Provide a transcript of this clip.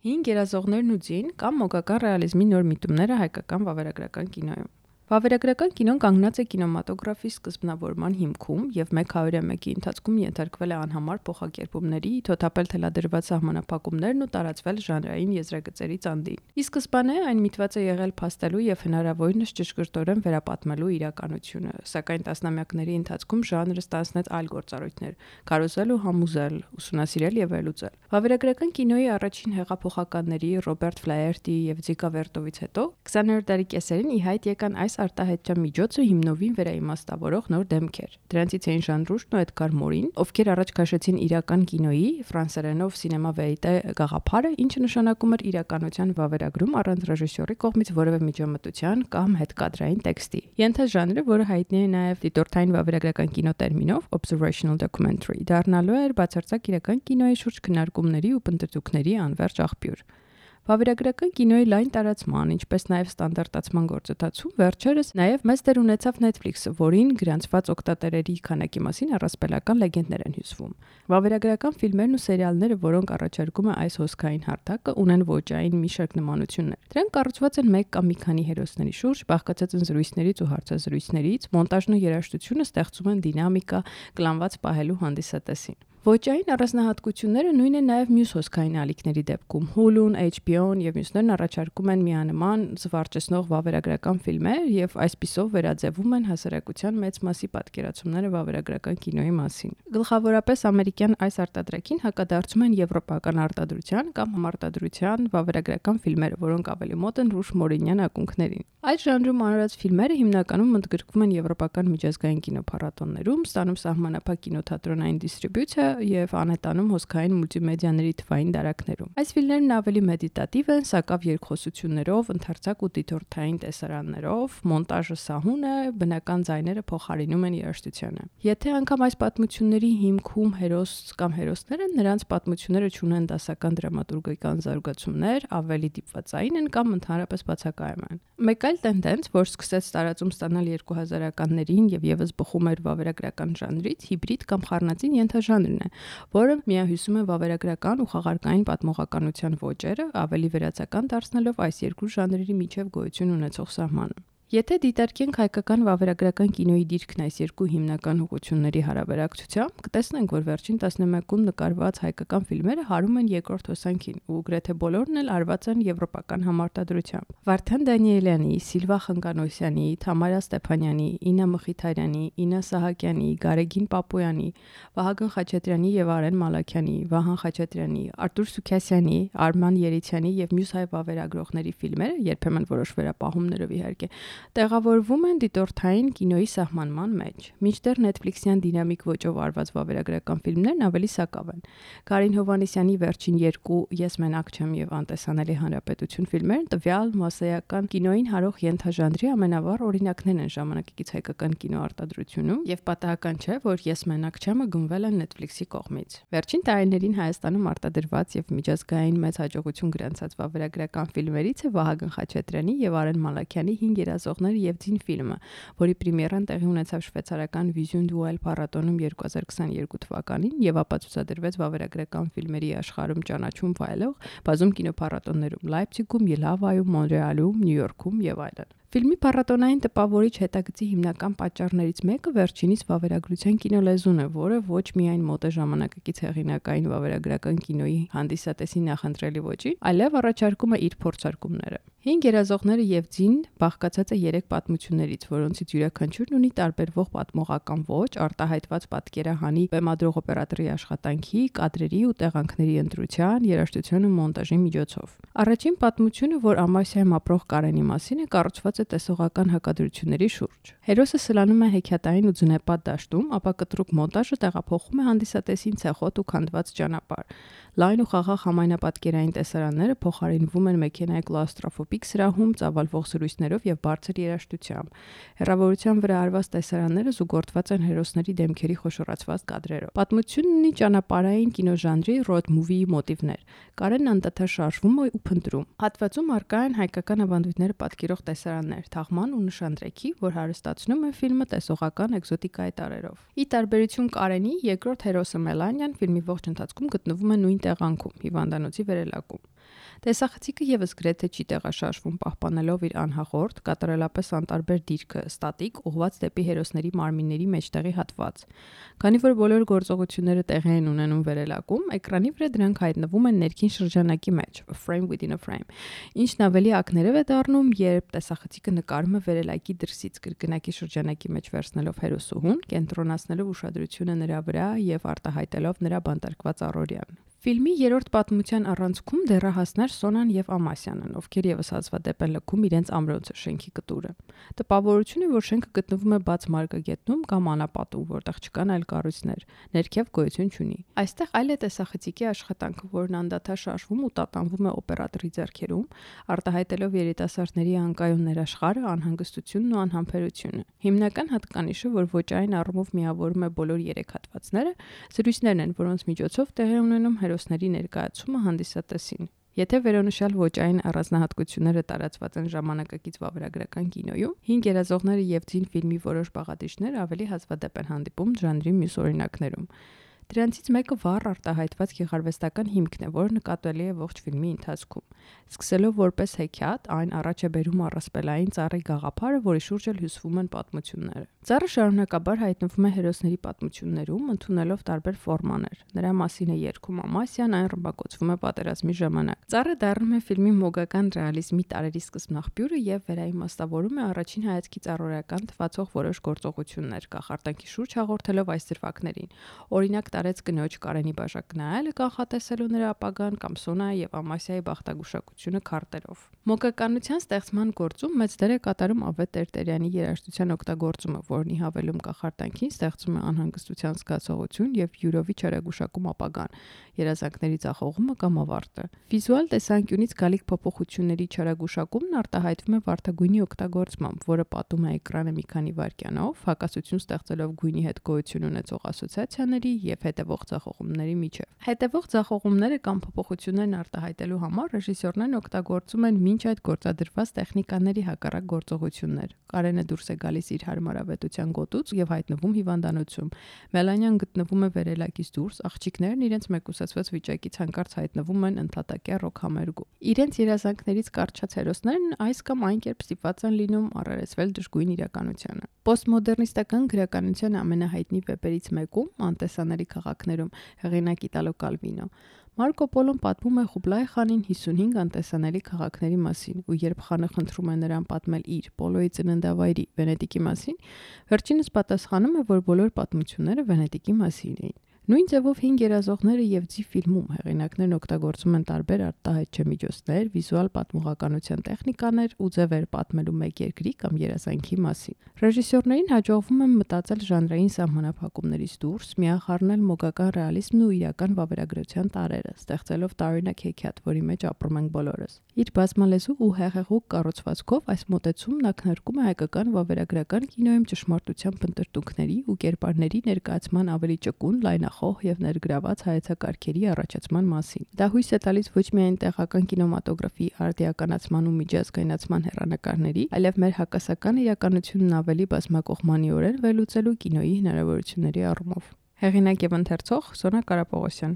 Հին գերազողներն ու ձին կամ մոգական ռեալիզմի նոր միտումները հայկական վավերագրական կինոյում։ Վավերագրական կինոն կանգնած է կինեմատոգրաֆի սկզբնավորման հիմքում եւ 101-ի ընթացքում ենթարկվել է անհամար փոխակերպումների, թոթափել թելադրված սահմանափակումներն ու տարածվել ժանրային եզրագծերի ծանդին։ Ի սկզբանե այն միտված է եղել փաստելու եւ հնարավորինս ճշգրտորեն վերապատմելու իրականությունը, սակայն տասնամյակների ընթացքում ժանրը ստանձնեց այլ գործառույթներ՝ քարոզել ու համոզել, ուսումնասիրել եւ վերլուծել։ Վավերագրական կինոյի առաջին հեղափոխականների Ռոբերտ Ֆլաերտի եւ Ձիկա Վերտովից հետո 20-րդ դարի կեսերին ի հայտ եկան այս արտահայտչական միջոցը հիմնովին վերաիմաստավորող նոր դեմքեր։ Դրանցից էին Ժան Ռուժն ու Էդգար Մորին, ովքեր առաջ քաշեցին իրական կինոյի ֆրանսերենով սինեմա վերիտե գաղափարը, ինչը նշանակում էր իրականության վավերագրում առանց ռեժիսորի կողմից որևէ միջամտության կամ հետկադրային տեքստի։ Ենթաժանրը, որը հայտնի է նաև դիտորդային վավերագրական կինո տերմինով observational documentary, դառնալու էր բացարձակ իրական կինոյի շուրջ քննարկումների ու պնդեցուկների անվերջ աղբյուր։ Վավերագրական կինոյի լայն տարածման, ինչպես նաև ստանդարտացման գործընթացում վերջերս նաև մեծ դեր ունեցավ Netflix-ը, որին գրանցված օգտատերերի քանակի մասին առասպելական լեգենդներ են հյուսվում։ Վավերագրական ֆիլմերն ու սերիալները, որոնք առաջարկում է այս հոսքային հարթակը, ունեն ոճային մի շարք նմանություններ։ Դրանք կառուցված են մեկ կամ մի քանի հերոսների շուրջ, բաղկացած են զրույցներից ու հարցազրույցներից, մոնտաժն ու երաժշտությունը ստեղծում են դինամիկա, կլանված պահելու հանդիսատեսին։ Ոճային առանձնահատկությունները նույնն է նաև մյուս հոսքային ալիքների դեպքում։ Hulu-ն, HBO-ն եւ մյուսներն առաջարկում են միանման զվարճեցնող վավերագրական ֆիլմեր եւ այսպիսով վերաձևում են հասարակության մեծ մասի պատկերացումները վավերագրական կինոյի մասին։ Գլխավորապես ամերիկյան այս արտադրակին հակադարձում են եվրոպական արտադրության կամ համարտադրության վավերագրական ֆիլմերը, որոնք ավելի մոտ են Ռուժ Մորինյան ակունքներին։ Այս ժանրում անորոշ ֆիլմերը հիմնականում ընդգրկվում են եվրոպական միջազգային կինոփառատոներում, ստանում սահմանափակ կինոթատրոնային դիստրիբյուցիա եւ անհետանում հոսքային մուլտիմեդիաների թվային դարակներում։ Այս ֆիլմերն ավելի մեդիտատիվ են, սակավ երկխոսություններով, ընդարձակ ու դիտորդային տեսարաններով, մոնտաժը սահուն է, բնական ձայները փոխարինում են երաժշտությանը։ Եթե անգամ այս պատմությունների հիմքում հերոս կամ հերոսներ են, նրանց պատմությունները ունեն դասական դրամատուրգիական զարգացումներ, ավելի դիպվածային են կամ ընդհանրապես բացակայում են։ Մեկ այլ տենդենց, որ սկսեց տարածում ստանալ 2000-ականներին եւ եւս բխում էր վավերագրական ժանրից, հիբրիդ կամ խառնածին ենթաժանրն է, որը միահյուսում է վավերագրական ու խաղարկային պատմողականության ոճերը, ավելի վերացական դարձնելով այս երկու ժանրերի միջև գոյություն ունեցող սահմանը։ Եթե դիտարկենք հայկական վավերագրական կինոյի դիրքն այս երկու հիմնական ուղղությունների հարաբերակցությամբ, կտեսնենք, որ վերջին 11-ում նկարված հայկական ֆիլմերը հարում են երկրորդ հոսանքին ու գրեթե բոլորն էլ արված են եվրոպական համարտադրությամբ։ Վարդան Դանիելյանի, Սիլվա Խնկանոսյանի, Թամարա Ստեփանյանի, Իննա Մխիթարյանի, Իննա Սահակյանի, Գարեգին Պապոյանի, Վահագն Խաչատրյանի եւ Արեն Մալաքյանի, Վահան Խաչատրյանի, Արտուր Սուքասյանի, Արման Երիցյանի եւ մյուս հայ վավերագրողների ֆիլմերը, երբեմն որոշ վերապահումներով իհարկե, տեղավորվում են դիտորդային կինոյի սահմանման մեջ։ Մինչդեռ Netflix-յան դինամիկ ոճով արված վավերագրական ֆիլմներն ավելի սակավ են։ Կարին Հովհաննիսյանի վերջին երկու Ես մենակ չեմ եւ Անտեսանելի հանրապետություն ֆիլմերն տվյալ մասսայական կինոյին հարող ենթաժանրի ամենավառ օրինակներն են ժամանակակից հայկական կինոարտադրությունում եւ պատահական չէ, որ Ես մենակ չեմը գնվել է Netflix-ի կողմից։ Վերջին տարիներին Հայաստանում արտադրված եւ միջազգային մեծ հաջողություն գրանցած վավերագրական ֆիլմերից է Վահագն Խաչատրյանի եւ Արեն Մալաքյանի Հին գերազողներ եւ ձին ֆիլմը, որի պրեմիերան տեղի ունեցավ շվեյցարական Vision Duel փառատոնում 2022 թվականին եւ ապացուցադրվեց վավերագրական ֆիլմերի աշխարհում ճանաչում վայելող բազում կինոփառատոներում՝ Լայպցիգում, Ելավայում, Մոնրեալում, Նյու Յորքում եւ այլն։ Ֆիլմի փառատոնային տպավորիչ հետագծի հիմնական պատճառներից մեկը վերջինիս վավերագրության կինոլեզուն է, որը ոչ միայն մոտ է ժամանակակից հեղինակային վավերագրական կինոյի հանդիսատեսի նախընտրելի ոճին, այլև առաջարկում է իր փորձարկումները։ Հին գերազողները եւ ձին բաղկացած է 3 պատմություններից, որոնցից յուրաքանչյուրն ունի տարբերվող պատմողական ոճ, արտահայտված պատկերահանի բեմադրող օպերատորի աշխատանքի, կադրերի ու տեղանքների ընտրության, երաժշտության ու մոնտաժի միջոցով։ Առաջին պատմությունը, որ Ամասիայում ապրող Կարենի մասին է, կառուցված է տեսողական հակադրությունների շուրջ։ Հերոսը սլանում է հեքիաթային ու ձնեպատ դաշտում, ապա կտրուկ մոնտաժը տեղափոխում է հանդիսատեսին ցեխոտ ու քանդված ճանապարհ։ Լայն ու խաղաղ համայնապատկերային տեսարանները փոխարինվում են մեքենայի կլաուստրոֆոբիկ սրահում ծավալվող զրույցներով եւ բարձր երաժշտությամբ։ Հեռավորության վրա արված տեսարանները զուգորդված են հերոսների դեմքերի խոշորացված կադրերով։ Պատմությունն ունի ճանապարհային կինոժանրի road movie մոտիվներ։ Կարենն անդադար շարժվում է ու փնտրում։ Հատվածում առկա են հայկական ավանդույթները պատկերող տեսարաններ, թաղման ու նշանдрեքի, որ հարստացնում է ֆիլմը տեսողական էկզոտիկայի տարրերով։ Ի տարբերություն Կարենի, երկրորդ հերոսը Մելանիան ֆիլմի ողջ ընթացքում գտնվում է նույն տեղանքում՝ հիվանդանոցի վերելակում։ Տեսախցիկը եւս գրեթե չի տեղաշարժվում, պահպանելով իր անհաղորդ, կատարելապես անտարբեր դիրքը, ստատիկ, ուղղված դեպի հերոսների մարմինների մեջտեղի հատված։ Քանի որ բոլոր գործողությունները տեղի են ունենում վերելակում, էկրանի վրա դրանք հայտնվում են ներքին շրջանակի մեջ, a frame within a frame, ինչն ավելի ակներև է դառնում, երբ տեսախցիկը նկարում է վերելակի դրսից կրկնակի շրջանակի մեջ վերցնելով հերոսուհուն, կենտրոնացնելով ուշադրությունը նրա վրա եւ արտահայտելով նրա բանտարկված առօրյան։ Ֆիլմի երրորդ պատմության առանցքում դեռահասներ Սոնան եւ Ամասյանն, ովքեր եւս հազվադեպ են լքում իրենց ամրոցը շենքի կտուրը։ Տպավորություն է, որ շենքը գտնվում է բաց մարգագետնում կամ անապատում, որտեղ չկան այլ կառույցներ, ներքև գոյություն չունի։ Այստեղ այլ է տեսախցիկի աշխատանքը, որն անդադար շարժվում ու տատանվում է օպերատորի ձեռքերում, արտահայտելով երիտասարդների անկայուն ներաշխարհը, անհանգստությունն ու անհամբերությունը։ Հիմնական հատկանիշը, որ ոճային առումով միավորում է բոլոր երեք հատվածները, զրույցներն են, որոնց միջոցով տեղի ունենում հերոսների ներկայացումը հանդիսատեսին։ Եթե վերոնշյալ ոճային առանձնահատկությունները տարածված են ժամանակակից վավերագրական կինոյում, հին գերազողները եւ ձին ֆիլմի որոշ բաղադրիչներ ավելի հազվադեպ են հանդիպում ժանրի մյուս օրինակներում։ Դրանցից մեկը վառ արտահայտված գեղարվեստական հիմքն է, որը նկատելի է ողջ ֆիլմի ընթացքում։ Սկսելով որպես հեքիաթ, այն առաջ է բերում առասպելային ծառի գաղափարը, որի շուրջ էլ հյուսվում են պատմությունները։ Ծառը շարունակաբար հայտնվում է հերոսների պատմություններում, ընդունելով տարբեր ֆորմաներ։ Նրա մասին է երգում Ամասյան, այն ռմբակոծվում է պատերազմի ժամանակ։ Ծառը դառնում է ֆիլմի մոգական ռեալիզմի տարերի սկզբնաղբյուրը եւ վերաիմաստավորում է առաջին հայացքից առօրեական թվացող որոշ գործողություններ, կախարդանքի շուրջ հաղորդելով այս դրվագներին։ Օրինակ տարեց կնոջ Կարենի բաժակ նայելը կանխատեսելու նրա ապագան կամ Սոնայի եւ Ամասիայի բախտագուշակությունը քարտերով։ Մոգականության ստեղծման գործում մեծ դեր է կատարում Ավետ Տերտերյանի երաժշտության օգտագործումը, որն ի հավելում կախարդանքին ստեղծում է անհանգստության զգացողություն եւ յուրովի չարագուշակում ապագան, երազանքների ձախողումը կամ ավարտը։ Վիզուալ տեսանկյունից գալիք փոփոխությունների չարագուշակումն արտահայտվում է վարդագույնի օգտագործմամբ, որը պատում է էկրանը մի քանի վայրկյանով, հակասություն ստեղծելով գույնի հետ գոյություն ունեցող ասոցիացիաների եւ հետևող ձախողումների միջև։ Հետևող ձախողումները կամ փոփոխություններն արտահայտելու համար ռեժիսորներն օգտագործում են մինչ այդ գործադրված տեխնիկաների հակառակ գործողություններ։ Կարենը դուրս է գալիս իր հարմարավետության գոտուց եւ հայտնվում հիվանդանոցում։ Մելանյան գտնվում է վերելակից դուրս, աղջիկներն իրենց մեկուսացված վիճակից հանկարծ հայտնվում են ընդհատակյա ռոքհամերգում։ Իրենց երազանքներից կարճած հերոսներն այս կամ այն կերպ ստիպված են լինում առերեսվել դժգույն իրականությանը։ Պոստմոդեռնիստական գրականության ամենահայտնի վեպերից մեկում «Անտեսանելի քաղաքներում» հեղինակ Իտալո Կալվինո Մարկո Պոլոն պատմում է Խուբլայ խանին 55 անտեսանելի քաղաքների մասին, ու երբ խանը խնդրում է նրան պատմել իր Պոլոյի ծննդավայրի Վենետիկի մասին, վերջինս պատասխանում է, որ բոլոր պատմությունները Վենետիկի մասին էին։ Նույն ձևով հին գերազողները եւ ձի ֆիլմում հեղինակներն օգտագործում են տարբեր արտահայտչի միջոցներ, վիզուալ պատմողականության տեխնիկաներ ու ձևեր պատմելու մեկ երկրի կամ երազանքի մասին։ Ռեժիսորներին հաջողվում է մտածել ժանրային սահմանափակումներից դուրս, միախառնել մոգական ռեալիզմն ու իրական վավերագրության տարրերը, ստեղծելով տարօրինակ հեքիաթ, որի մեջ ապրում ենք բոլորս։ Իր բազմալեզու ու հեղեղուկ կառուցվածքով այս մոտեցումն ակնարկում է հայկական վավերագրական կինոյում ճշմարտության փնտրտուքների ու կերպարների ներկայացման ավելի ճկուն, լայնախոհ եւ ներգրաված հայեցակարգերի առաջացման մասին։ Դա հույս է տալիս ոչ միայն տեղական կինեմատոգրաֆի արդիականացման ու միջազգայնացման հեռանկարների, այլև մեր հակասական իրականությունն ավելի բազմակողմանիորեն վերլուծելու կինոյի հնարավորությունների առումով։ Հեղինակ եւ ընթերցող Սոնա Կարապողոսյան։